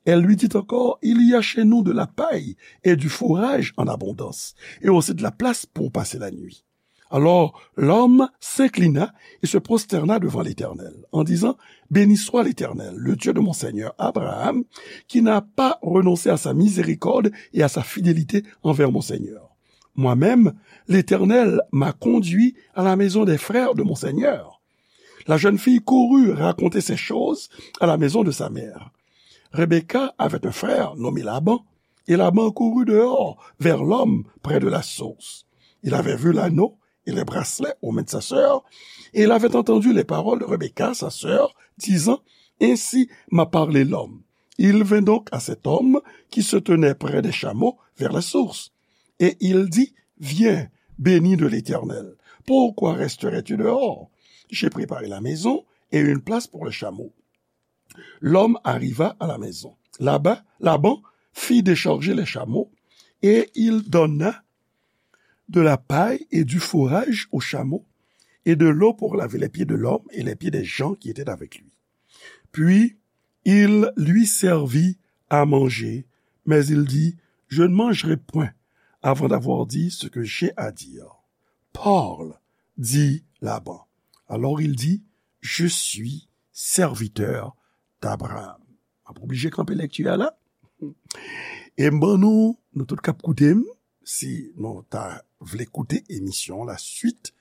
Elle lui dit encore, il y a chez nous de la paille et du fourrage en abondance, et aussi de la place pour passer la nuit. Alors l'homme s'inclina et se prosterna devant l'Éternel, en disant, béni soit l'Éternel, le Dieu de mon seigneur Abraham, qui n'a pas renoncé à sa miséricorde et à sa fidélité envers mon seigneur. Moi-même, l'Éternel m'a conduit à la maison des frères de mon seigneur. La jeune fille courut raconter ces choses à la maison de sa mère. Rebecca avait un frère nommé Laban, et Laban courut dehors vers l'homme près de la source. Il avait vu l'anneau et les bracelets aux mains de sa sœur, et il avait entendu les paroles de Rebecca, sa sœur, disant, ainsi m'a parlé l'homme. Il vint donc à cet homme qui se tenait près des chameaux vers la source. Et il dit, viens, béni de l'Éternel. Pourquoi resterais-tu dehors ? J'ai préparé la maison et une place pour les chameaux. L'homme arriva à la maison. Là-bas, Laban fit décharger les chameaux et il donna de la paille et du fourrage aux chameaux et de l'eau pour laver les pieds de l'homme et les pieds des gens qui étaient avec lui. Puis il lui servit à manger, mais il dit, je ne mangerai point avant d'avoir dit ce que j'ai à dire. Parle, dit Laban. Alors il dit, je suis serviteur d'Abraham. M ap oblije kanpe lekti a la. E m ban nou, nou tout k ap koute m, si nou ta vle koute emisyon la suite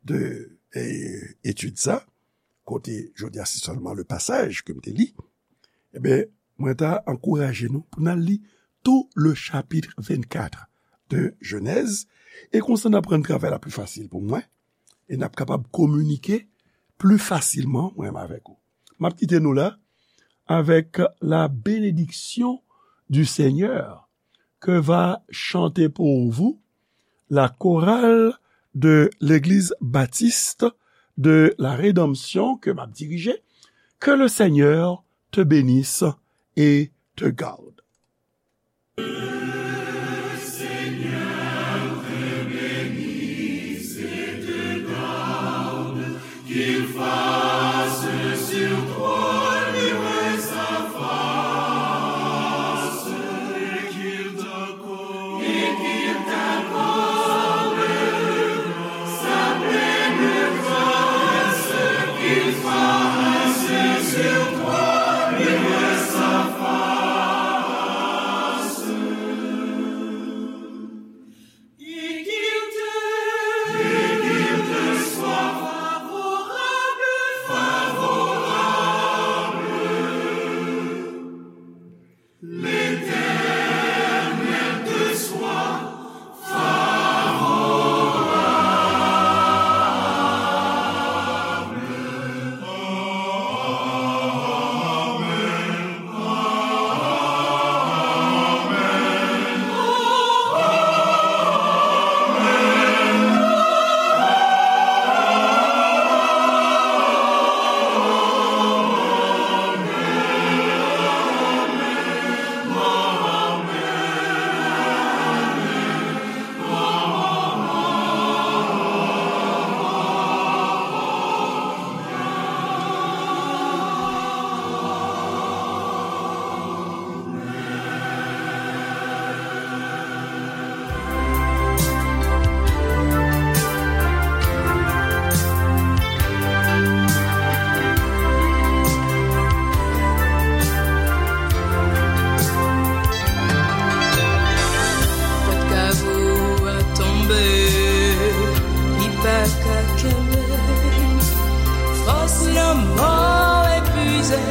de eh, etid sa, kote jodi a se sèlman le pasaj ke m te li, ebyen, mwen ta ankouraje nou pou n al li tou le chapitre vingt-quatre de Genèse, e konsa n ap rann travay la pli fasil pou mwen, e n ap kapab kominike pli fasilman, mwen menm avèk ou. M ap kite nou la avec la bénédiction du Seigneur que va chanter pour vous la chorale de l'Église baptiste de la Rédemption ke m ap dirije. Que le Seigneur te bénisse et te garde.